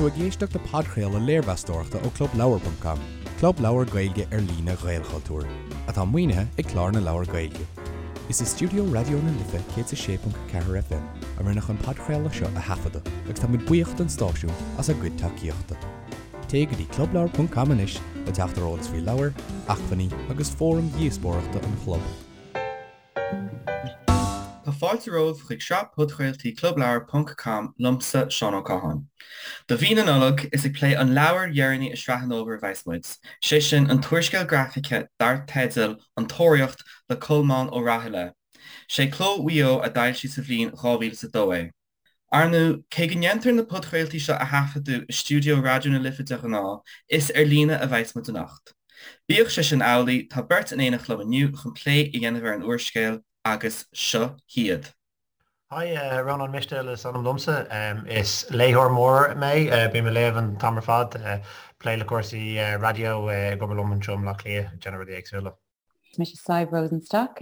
tú ag éisteacht le podchraoladh léirmheastóireachta ó ClubLeabhar.com, club leabhar Gaeilge ar líne Ghaelchultúir, atá maoinithe ag Clár na Leabhar Gaeilge. Is i stiúideo Raidió na Life 106.4 FM a rinneadh an podchraoladh seo a thaifeadadh agus tá muid buíoch don stáisiún as a gcuid tacaíochta. Téigh go dtí clubleabhar.com anois le teacht ar eolas faoi leabhair, acmhainní agus fóraim dhíospóireachta an chlub. Tá fáilte romhaibh chuig sraith podchraoltaí Clubleabhar ponc com liomsa, Seán Ó Catháin. Do mhí na Nollag, is ag plé an leabhair dheireanaí i sraith an fhómhair a bheas muid, sé sin an t-úrscéal grafaice dar teideal An Tóraíocht le Colmán Ó Rathaille. Sé Cló Mhaigh Eo a d'fhoilsigh sa bhliain 2002 é. Ar ndóigh, cé go ndéantar na podchraoltaí seo a thaifeadadh i stiúideo Raidió na Life de ghnáth, is ar líne a bheas muid anocht. Bíodh sé sin amhlaidh, tá beirt in éineacht liom inniu chun plé a dhéanamh ar an úrscéal, agus seo hiad. Hi, Rónán Mistéil is ainm domsa. Is léitheoir mór mé, bím ag léamh an t-am ar fad, plé le cúrsaí raidió, ag obair liom anseo i mBleá Cliath, ag déanamh rudaí éagsúla. Is mise Sadhbh Rosenstock.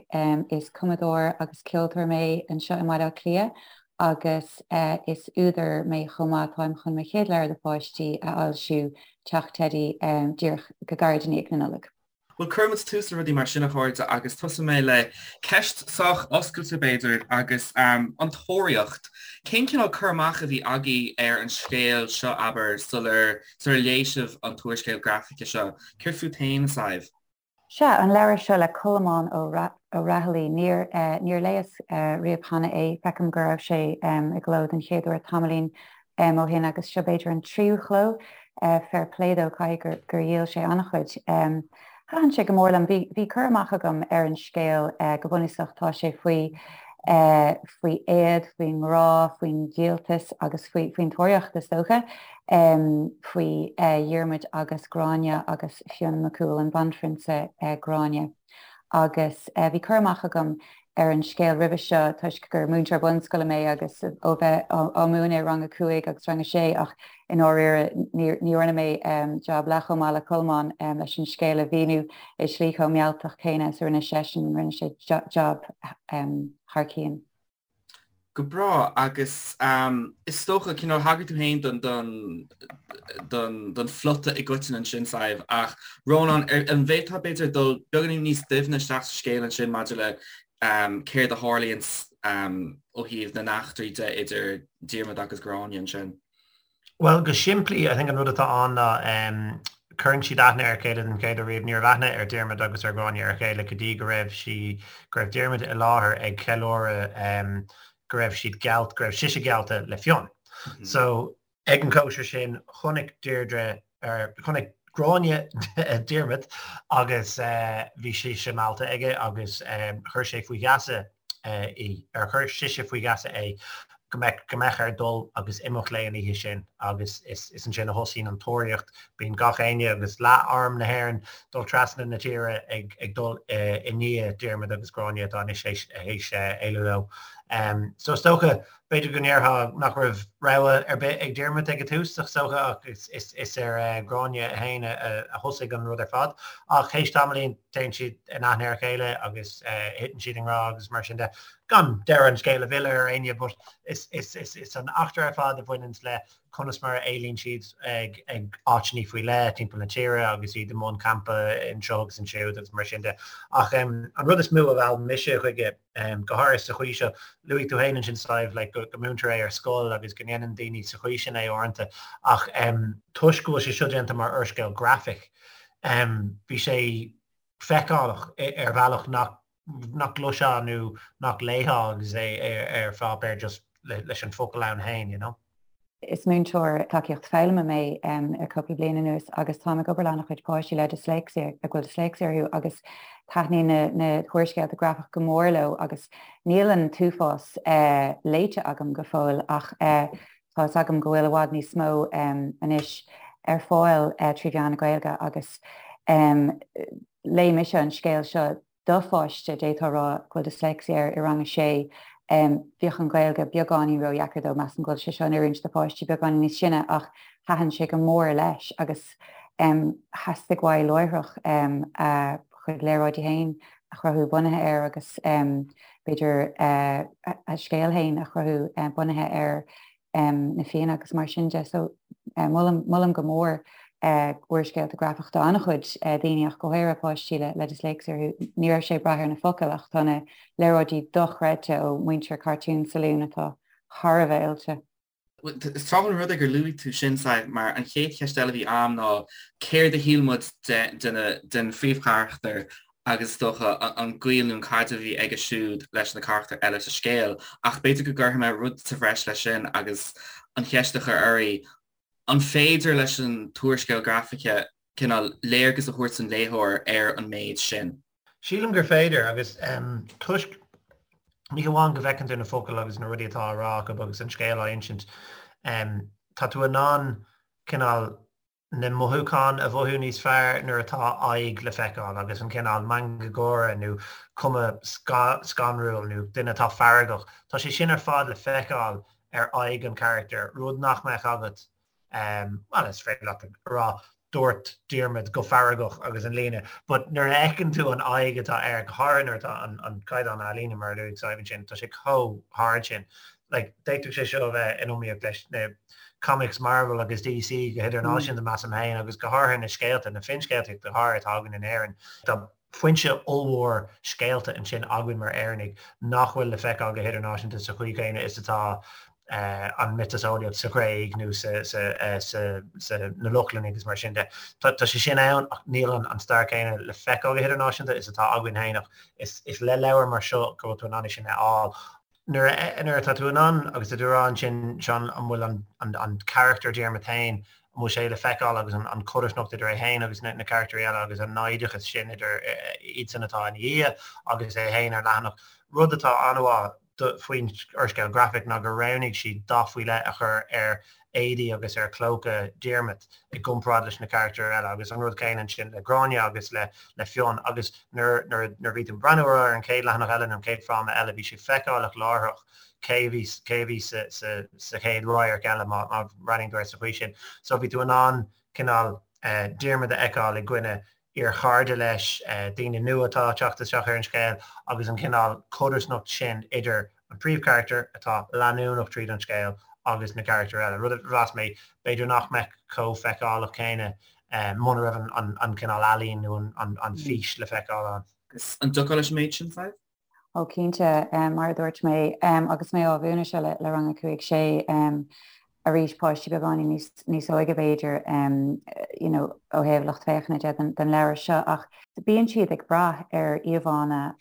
Is cumadóir agus ceoltóir mé anseo i mBaile Átha Cliath agus is údar mé chomh maith. Táim chun mo chéad leabhar do pháistí a fhoilsiú, Teach Teidí, díreach go gairid i ndiaidh na Nollag. Bhuel, cuirfidh muid tús le rudaí mar sin, a chairde, agus tosóidh mé le ceist sách oscailte, b'fhéidir, agus an Tóraíocht. Cén cineál cur amach a bhí agaibh ar an scéal seo, abair, sular sular léigh sibh an t-úrscéal grafaice seo? Céard fút féin, a Sadhbh? Sea, an leabhar seo le Colmán Ó Raghallaigh. Níor, níor léas riamh cheana é. Feicim go raibh sé i gcló den chéad uair tamaillín ó shin agus seo b'fhéidir an tríú chló. Fair play dó, caithfidh gur dhíol sé an-chuid. Thaitin sé go mór liom. Bhí, bhí cur amach agam ar an scéal go bunúsach. Tá sé faoi, faoi éad, faoin ngrá, faoin díoltas agus faoi, faoin tóraíocht is dócha. Faoi Dhiarmuid agus Gráinne agus Fionn Mac Cumhaill, an banphrionsa Gráinne. Agus bhí cur amach agam ar an scéal roimhe seo toisc gur múinteoir bunscoile mé agus ó bheith á múineadh i rang a 5 agus rang a 6 ach i ndáiríre ní dhearna mé jab leath chomh maith le Colmán leis an scéal a mhíniú i slí chomh mealltach céanna is a rinne seisean, rinne sé jab thar cionn. Go breá, agus is dócha, cineál, thagair tú féin don, don, don, don phlota i gcoitinne ansin, Sadhbh, ach Rónán, an bhféadfá, b'fhéidir, dul beagáinín níos doimhne isteach sa scéal ansin maidir le céard a tharlaíonn ó thaobh na n-eachtraí de idir Diarmaid agus Gráinne ansin? Bhuel, go simplí, I think an rud atá ann ná cuireann siad aithne ar a chéile den chéad uair riamh. Ní raibh aithne ar Diarmuid agus ar Ghráinne ar a chéile go dtí go raibh sí, go raibh Diarmuid i láthair ag ceiliúradh go raibh siad geallt, go raibh sise geallta le Fionn. So, ag an cóisir sin, chonaic Deirdre, or chonaic Gráinne Diarmuid agus bhí sise meallta aige agus chuir sé faoi gheasa í, ar chuir sise faoi gheasa é go mbeadh, go mbeadh air dul agus imeacht léi an oíche sin agus is, is ansin a thosaíonn an tóraíocht. Bíonn gach éinne agus leath arm na hÉireann dul trasna na tíre ag, ag dul i ndiaidh Diarmuid agus Gráinne atá anois théis, théis éalú leo. So is dócha, b'fhéidir go ndéarfá nach raibh rogha ar bith ag Diarmuid ag an tús, is dócha, ach is, is, is ar Ghráinne féin a, a thosaigh an rud ar fad. Ach théis tamaillín, téann siad in aithne ar a chéile agus thiteann siad i ngrá agus mar sin de. Gan deireadh an scéil a mhilleadh ar éinne but is is is is an eachtra ar fad a bhaineanns le conas mar a éalaíonn siad ag ag áiteanna faoi leith timpeall na tíre agus iad i mbun campa anseo agus ansiúd agus mar sin de. Ach an rud is mó a mheall mise chuige, go háirithe sa chaoi seo, luaigh tú féin ansin Sadhbh, like go go múintear é ar scoil agus go ndéanann daoine sa chaoi sin é uaireanta ach toisc go bhfuil sé seo déanta mar úrscéal grafaic, Bhí sé feiceálach ar bhealach nach nach gcloisfeá nó nach léifeá agus é ar pháipéar just leis an focal ann féin, you know. Is múinteoir tacaíocht foghlama mé le cúpla bliain anuas agus táim ag obair le an-chuid páistí le disléicse, a bhfuil disléicse orthu agus taitníonn na húrscéalta grafach go mór leo agus níl an t-uafás léite agam go fóill ach Tá fhios agam go bhfuil i bhfad níos mó anois ar fáil trí mheán na Gaeilge agus léigh mise an scéal seo do pháiste, d'fhéadfá a rá, go bhfuil dyslexia air i rang a sé. Bhíodh an Ghaeilge beagáinín ródheacair dó, measaim go bhfuil sé seo in oiriúint do pháistí beagáinín níos sine ach thaitin sé go mór leis agus theastaigh uaidh láithreach a chuid léaráidí féin a chruthú bunaithe air agus b'fhéidir a scéal féin a chruthú bunaithe ar na Fianna agus mar sin de. So. Molaim, molaim go mór úrscéalta grafach do an-chuid daoine ach go háirithe páistí le disléicse orthu. Ní raibh sé ag brath ar na focail ach tá na léaráidí dochreidte ó mhuintir Cartoon Saloon atá thar a bheith oilte. Is tráthúil an rud é gur luaigh tú sin, Sadhbh, mar an chéad cheist eile a bhí a'm ná céard a shíl muid den phríomhcharachtar agus is dócha an gaol nó an caidreamh a bhí aige siúd leis na carachtair eile sa scéal. Ach b'fhéidir go gcuirfidh mé rud sa bhreis leis sin agus an cheist a chur oraibh, an féidir leis an t-úrscéal grafaice cineál léargas a thabhairt don léitheoir ar an méid sin? Sílim gur féidir, agus toisc ní hamháin go bhfeiceann tú na focail agus na rudaí atá á rá acu agus an scéal á insint, tá tú in ann cineál na mothúcháin a mhothú níos fearr nuair atá aghaidh le feiceáil agus an cineál meangadh gáire nó cuma scanrúil nó duine atá feargach, tá sé sin ar fad le feiceáil ar aghaidh an charachtair, rud nach mbeadh agat Bhuel, is féidir leat a rá dúirt Diarmaid go feargach agus an líne, but nuair a fheiceann tú an aghaidh atá air, go háirithe nuair atá an caighdeán ealaíne mar a luaigh Sadhbh ansin, tá sé chomh hard sin. Like, d'fhéadfadh sé seo a bheith in iomaíocht leis na comics Marvel agus DC go hidirnáisiúnta, measaim féin, agus go háirithe na scéalta, na finscéalta go háirithe atá againn in Éirinn. Tá foinse ollmhór scéalta ansin againn mar Éireannaigh nach bhfuil le feiceáil go hidirnáisiúnta sa chaoi chéanna is atá an mhiotaseolaíocht sa Ghréig nó sa na Lochlannaigh agus mar sin de. Tá sé sin ann ach níl an stair chéanna le feiceáil go hidirnáisiúnta is atá againn féin ach is le leabhar mar seo go bhfuil tú in ann é sin a fháil. Nuair nuair atá tú in ann, agus tá tú ag rá ansin, Seán, an bhfuil an an carachtar Diarmaid féin, an bhfuil sé le feiceáil agus an codarsnacht idir é féin agus na na carachtair eile agus an naimhdeachas sin idir iadsan atá ina dhiaidh agus é féin ar leathanach. Rud atá an-mhaith faoin úrscéal grafaic ná gur roghnaigh siad dath faoi leith a chur ar éadaí agus ar chlóca Diarmaid i gcomparáid leis na carachtair eile agus an rud céanna ansin le Gráinne agus le le Fionn agus nuair nuair nuair a bhí tú ag breathnú ar an chéad leathanach eile nó an chéad fráma eile bhí sé feiceálach láithreach cé a bhí cé a bhí sa sa sa chéad radharc eile má má bhreathnaíonn tú air sa chaoi sin. So bhí tú in ann cineál Diarmaid a fheiceáil i gcoinne iarchairde leis, daoine nua atá ag teacht isteach ar an scéal agus an cineál codarsnacht sin idir an príomhcharachtar atá leanúnach tríd an scéal agus na carachtair eile, rud a mheas mé b'fhéidir nach mbeadh chomh feiceálach céanna muna raibh an cineál ealaín nó an fhís le feiceáil ann. An dtiocfá leis an méid sin, Sadhbh? Ó cinnte, mar a dúirt mé, agus mé á mhúineadh seo le rang a 5, 6, arís páistí beagáinín níos óige b'fhéidir, you know, ó thaobh lucht féachana de don leabhar seo ach bíonn siad ag brath ar íomhánna,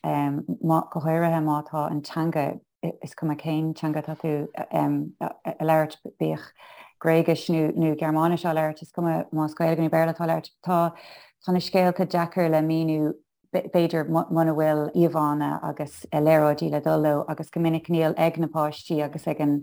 go háirithe má tá an teanga, is cuma cén teanga atá tú a labhairt, bíodh Gréigis nó Gearmáinis á labhairt, is cuma más Gaeilge nó Béarla atá á labhairt, tá na scéalta deacair le míniú b'fhéidir muna bhfuil íomhánna agus léaráidí le dul leo agus go minic níl ag na páistí agus ag an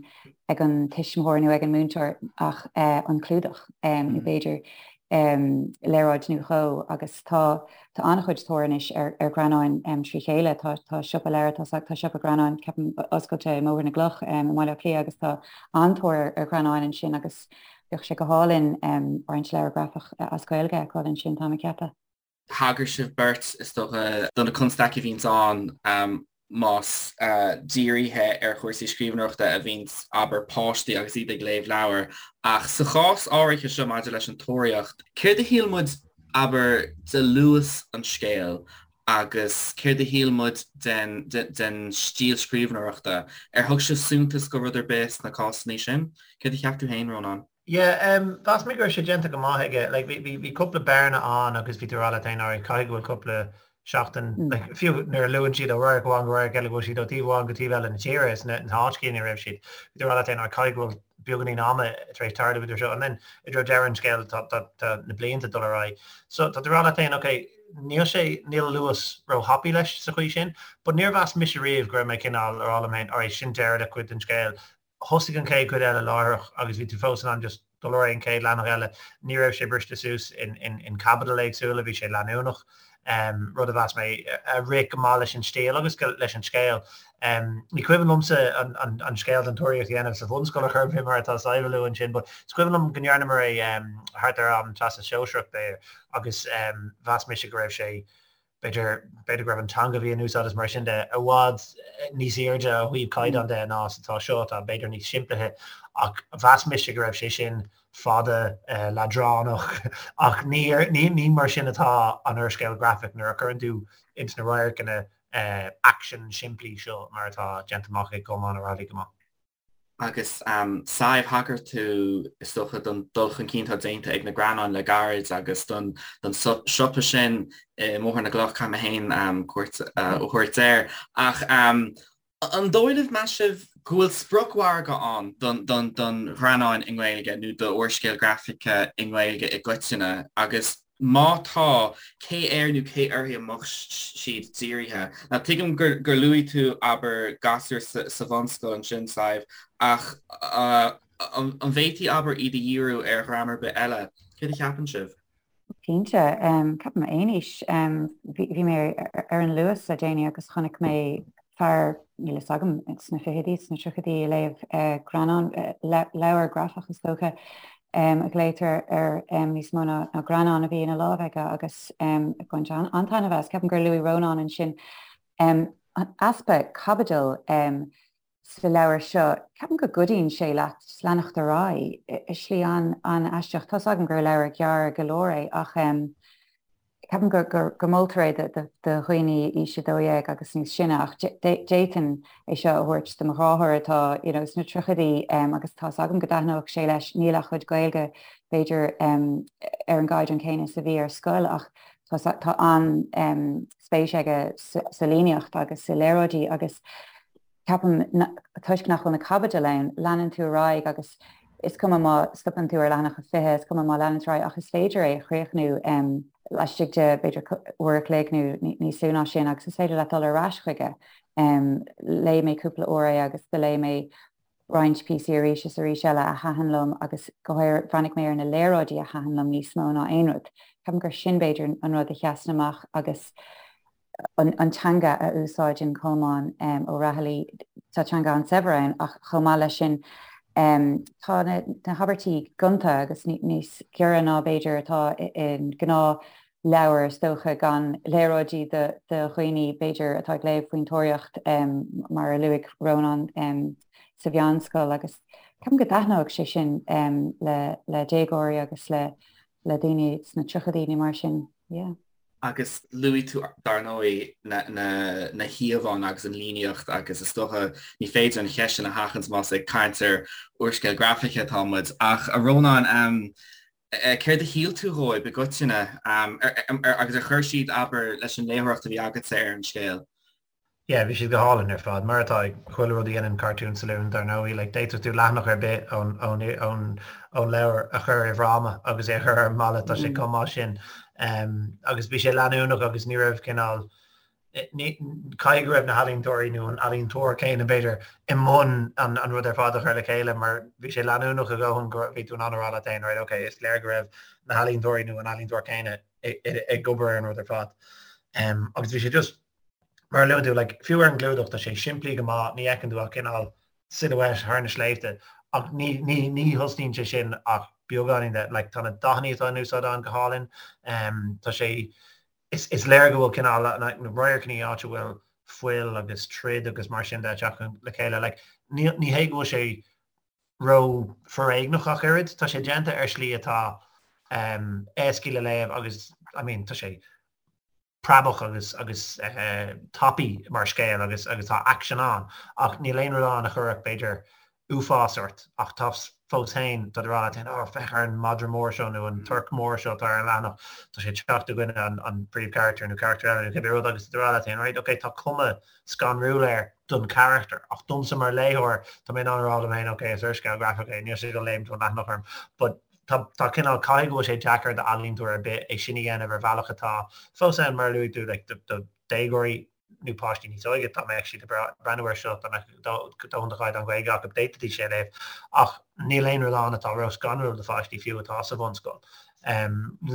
ag an tuismitheoir nó ag an múinteoir ach an clúdach nó b'fhéidir léaráid nó dhó agus tá tá an-chuid tóir anois ar ar ghreannáin trí chéile. Tá tá siopa leabhar tá tá siopa greannáin ceapaim oscailte i mBóthar na gCloch i mBaile Átha Cliath agus tá an-tóir ar ghreannáin ansin agus bheadh sé go hálainn roinnt leabhar grafach as Gaeilge a fheiceáil ansin táim ag ceapadh. Thagair sibh beirt, is dócha, do na constaicí a bhíonns ann más dírithe ar chúrsaí scríbhneoireachta a bhíonns, abair, páistí agus iad ag léamh leabhar. Ach sa chás áirithe seo maidir leis an Tóraíocht, céard a shíl muid, abair, de luas an scéil agus céard a shíl muid den den stíl scríbhneoireachta? Ar thug sibh suntas do rud ar bith sna cásanna sin? Céard a cheap tú féin, Rónán? Yeah, um, mheas mé go raibh sé déanta go maith aige. Like, bhí, bhí, bhí cúpla bearna ann agus bhí tú ag rá leat féin, alright, caithfidh go bhfuil cúpla seachtain, mm. like, fiú nuair a luann siad ó radharc amháin go radharc eile go bhfuil siad ó taobh amháin go taobh eile na tíre is na, na háiteacha ina raibh siad. Bhí tú ag rá leat féin, alright, caithfidh go bhfuil beagáinín ama tar éis tarlú idir seo. And then i dtreo deireadh an scéil tá, tá, tá na blianta dul ar aghaidh. So tá tú ag rá leat féin, okay, níl sé, níl luas ró-thapaidh leis sa chaoi sin, but níor mheas mise riamh go raibh mé cineál ag rá liom féin, alright, sin deireadh le cuid den scéal. Thosaigh an chéad chuid eile láithreach agus bhí tú fós in ann just dul ar aghaidh an chéad leathanach eile. Ní raibh sé briste suas in caibidil éagsúla, bhí sé leanúnach, rud a mheas mé a rith go maith leis an stíl agus leis an scéal. Ní cuimhin liomsa an scéal den Tóraíocht a dhéanamh sa bhunscoil ar chor ar bith mar atá Sadhbh a lua ansin but is cuimhin liom go ndearnamar é thart ar am Teastas Sóisearach b'fhéidir agus mheas mise go raibh sé. B'fhéidir, b'fhéidir go raibh an teanga a bhí in úsáid is mar sin de i bhfad níos airde ó thaobh caighdeán de ná is atá seo, atá b'fhéidir níos simplithe, ach mheas mise go raibh sé sin fada, leadránach, ach ní, ní, ní mar sin atá an úrscéal grafach nuair a chuireann tú ins na radharcanna aicsin simplí seo mar atá déanta amach ag Colmán Ó Raghallaigh go maith. Agus Sadhbh, thagair tú, is dócha, don dul chun cinn atá déanta ag na greannáin le gairid agus don siopa sin i mBóthar na gCloch, caithfidh mé féin cuairt a thabhairt air. Ach an dóigh libh, meas sibh, go bhfuil spriocmhargadh ann don ghreannáin i nGaeilge nó d'úrscéal grafaice i nGaeilge i gcoitinne agus Má tá, cé air nó cé uirthi a mbeadh siad dírithe? Now tuigim gur luaigh tú, abair, gasúir sa bhunscoil ansin, Sadhbh, ach an bhféadfaí, abair, iad a dhíriú ar dhream ar bith eile? Céard a cheapann sibh? Cinnte. Ceapaim aon aois. Bhí mé ar an Luas le déanaí agus chonaic mé fear, níl fhios agam, sna fichidí, sna tríochaidí, ag léamh greannán, leabhar grafach is dócha, a ghlaotar air níos mó ná greannán a bhí ina lámh aige agus ag baint an-taitneamh as. Ceapaim gur luaigh Rónán ansin an easpa caibidil sa leabhar seo. Ceapaim go gcuidíonn sé leat leanacht ar aghaidh i slí an-aisteach. Tá's agam gur leabhar gearr go leor é ach Ceapaim go moltar é do dhaoine aois 12 agus níos sine ach d'fhéadfainn é seo a thabhairt do mo dheartháir atá you know sna tríochaidí agus tá's agam go dtaitneodh sé leis. Níl a chuid Gaeilge b'fhéidir ar an gcaighdeán céanna is a bhí ar scoil ach tá an-spéis aige sa líníocht agus sa léaráidí agus Ceapaim, toisc nach bhfuil na caibidil ann, leanann tú ar aghaidh agus is cuma má stopann tú ar leathanach a 20, is cuma má leanann tú ar aghaidh ach is féidir é a chríochnú laistigh de, b'fhéidir, uair a chloig nó níos lú ná sin agus is féidir leat dul ar ais chuige. Léigh mé cúpla uair é agus do léigh mé roinnt píosaí arís is arís eile a thaitin liom agus go háirithe bhreathnaigh mé ar na léaráidí a thaitin liom níos mó ná aon rud. Ceapaim gur sin b'fhéidir an rud a sheasann amach agus an teanga a úsáideann Colmán Ó Raghallaigh, tá teanga an-saibhir ann ach chomh maith leis sin tá na habairtí gonta agus níos giorra ná b'fhéidir atá i ngnáthleabhar is dócha, gan léaráidí do dhaoine b'fhéidir atá ag léamh faoin tóraíocht mar a luaigh Rónán sa mheánscoil agus ceapaim go dtaitneodh sé sin le déagóirí agus le daoine sna tríochaidí nó mar sin, yeah. Agus luaigh tú, dar ndóigh, na híomhánna agus an líníocht agus is dócha ní féidir an cheist sin a sheachaint más ag caint ar úrscéal grafaice atá muid. Ach, a Rónáin, céard a shíl tú dhóibh i gcoitinne agus ar chuir siad, abair, leis an léitheoireacht a bhí agatsa ar an scéal? Yeah, bhí siad go hálainn ar fad, mar atá ag chuile rud a dhéanann Cartoon Saloon, dar ndóigh. Like, d'fhéadfadh tú leathanach ar bith ón, ón, ón, ón leabhar a chur i bhfráma agus é a chur ar an mballa, tá sé chomh maith sin. Um, agus bhí sé leanúnach agus ní raibh cineál, ní, caithfidh go raibh na healaíontóirí nó an ealaíontóir céanna b'fhéidir i mbun an, an rud ar fad a chur le chéile mar bhí sé leanúnach a dhóthain go bhí tú in ann a rá leat féin, right, okay, is léir go raibh na healaíontóirí nó an ealaíontóir céanna ag obair ar an rud ar fad. Um, agus bhí sé just Mar a luaigh tú, like, fiú ar an gclúdach, tá sé simplí go maith, ní fheiceann tú ach cineál silhouette thar na sléibhte, ach ní, ní, ní thosnaíonn sé sin ach beagáinín de, like, tá na dathanna atá in úsáid ann go hálainn, um, tá sé, is, is léir go bhfuil cineál, na, na radharcanna áit a bhfuil fuil agus troid agus mar sin de ag teacht le chéile, like, ní, ní hé go bhfuil sé ró-fhoréigneach ach oiread, tá sé déanta ar shlí atá, um, éascaí le léamh agus, I mean, tá sé preabach agus agus tapaidh mar scéal agus agus tá aicsean ann ach níl aon rud ann a chuirfeadh b'fhéidir uafás ort ach tá fós féin tá tú ag rá leat féin oh féach ar an madra mór seo nó an torc mór seo atá ar an leathanach tá sé ag teacht i gcoinne an an príomhcharachtar nó carachtar eile nó cibé rud agus tá tú ag rá leat féin right ok tá cuma scanrúil air don charachtar ach domsa mar léitheoir tá mé in ann a rá liom féin ok is úrscéal grafach é níl sé ag dul léimt ón leathanach orm but Tá, tá cineál, caithfidh go bhfuil sé deacair d'ealaíontóir ar bith é sin a dhéanamh ar bhealach atá fós ann, mar a luaigh tú, like, do, do déagóirí nó páistí níos óige, dá mbeadh siad ag breathnú air seo, dá mbeadh dóthain de chaighdeán Gaeilge acu, d'fhéadfaidís é a léamh. Ach níl aon rud ann atá ró-scanrúil do pháistí fiú atá sa bhunscoil.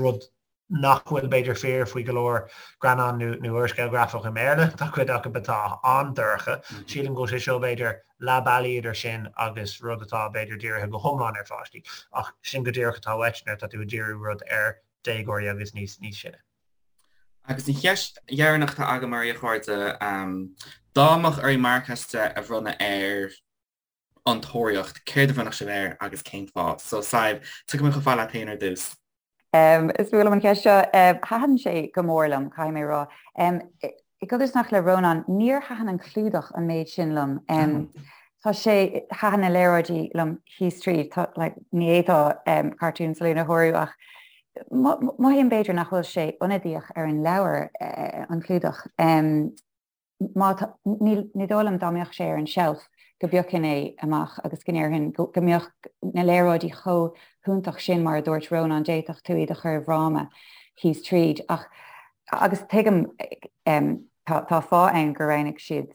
Rud nach bhfuil b'fhéidir fíor faoi go leor greannán nó nó úrscéal grafach i mBéarla, tá cuid acu atá an-dorcha. Sílim go bhfuil sé seo b'fhéidir leath bealaigh idir sin agus rud atá b'fhéidir dírithe go hiomlán ar pháistí. Ach sin go díreach atá uait nuair atá tú ag díriú rud ar déagóirí agus níos níos sine. Agus an cheist dheireanach atá agam oraibh, a chairde, dá mbeadh oraibh marc as 10 a bhronnadh ar An Tóraíocht, céard a bhronnfadh sibh air agus cén fáth? So, Sadhbh, tiocfaidh mé chomh fada leat féin ar dtús. Is fuath liom an cheist seo. Thaitin sé go mór liom, caithfidh mé a rá. I gcodarsnacht le Rónán, níor thaitin an clúdach an méid sin liom. Tá sé, thaitin na léaráidí liom thíos tríd, tá, like, ní fhéadfá Cartoon Saloon a shárú ach mothaím b'fhéidir nach bhfuil sé ionadaíoch ar an leabhar, an clúdach. Má tá, ní dóigh liom dá mbeadh sé ar an tseilf go bpiocfainn é amach agus go ndéarfainn go mbeadh na léaráidí chomh hiontach sin mar a dúirt Rónán, d'fhéadfadh tú iad a chur i bhfráma thíos tríd. Ach, agus tuigim, tá tá fáth ann gur roghnaigh siad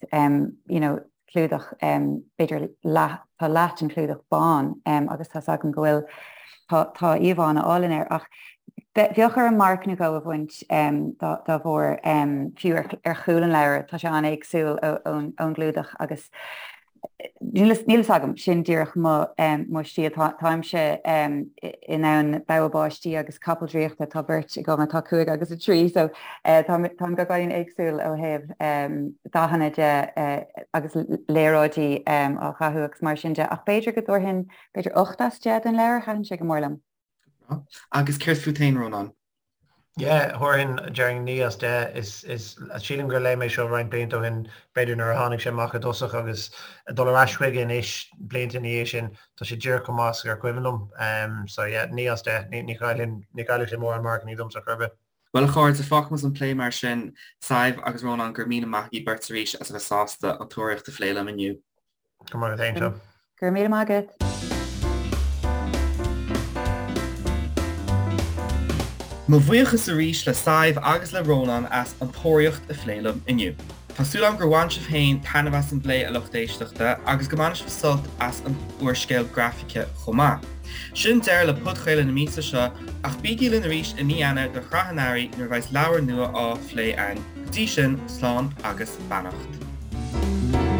you know clúdach b'fhéidir leath, tá leath den chlúdach bán agus tá's agam go bhfuil, tá tá íomhánna álainn air ach bheadh orm marc nó dhó a bhaint dá bharr, fiú ar chúl an leabhair, tá sé an-éagsúil ón gclúdach agus níl a fhios agam, sin díreach mo mo stíl, táimse in ann bogha báistí agus capall draíochta, tá beirt agam atá 5 agus 3 so táim beagáinín éagsúil ó thaobh dathanna de agus léaráidí á dhathú agus mar sin de ach b'fhéidir go dtabharfainn b'fhéidir 8 as 10 don leabhar, thaitin sé go mór liom. Agus céard fút féin, Rónán? Yeah, thabharfainn, déarfainn 9 as 10. Is, is, sílim gur léigh mé seo roinnt blianta ó shin, b'fhéidir nuair a tháinig sé amach i dtosach agus ag dul ar ais chuige anois, blianta ina dhiaidh sin, tá sé díreach chomh maith is gur cuimhin liom. Um, so yeah, 9 as 10. Ní, ní chaillfinn, ní chaillfeadh sé mórán marcannaí domsa chor ar bith. Bhuel a chairde, fágfaimid an plé mar sin. Sadhbh agus Rónán, go raibh míle maith agaibh beirt arís as a bheith sásta An Tóraíocht a phlé liom inniu. Go raibh maith agat féin, Seán. Go raibh míle maith agat. Mo bhuíochas arís le Sadhbh agus le Rónán as An Tóraíocht a phlé liom inniu. Tá súil agam gur bhain sibh féin taitneamh as an bplé, a lucht éisteachta, agus go mbainfidh sibh sult as an úrscéal grafaice chomh maith. Sin deireadh le podchraoladh na míosa seo, ach bígí linn arís i mí Eanáir do shraith an Earraigh nuair a bheas leabhar nua á phlé againn. Go dtí sin, slán agus beannacht.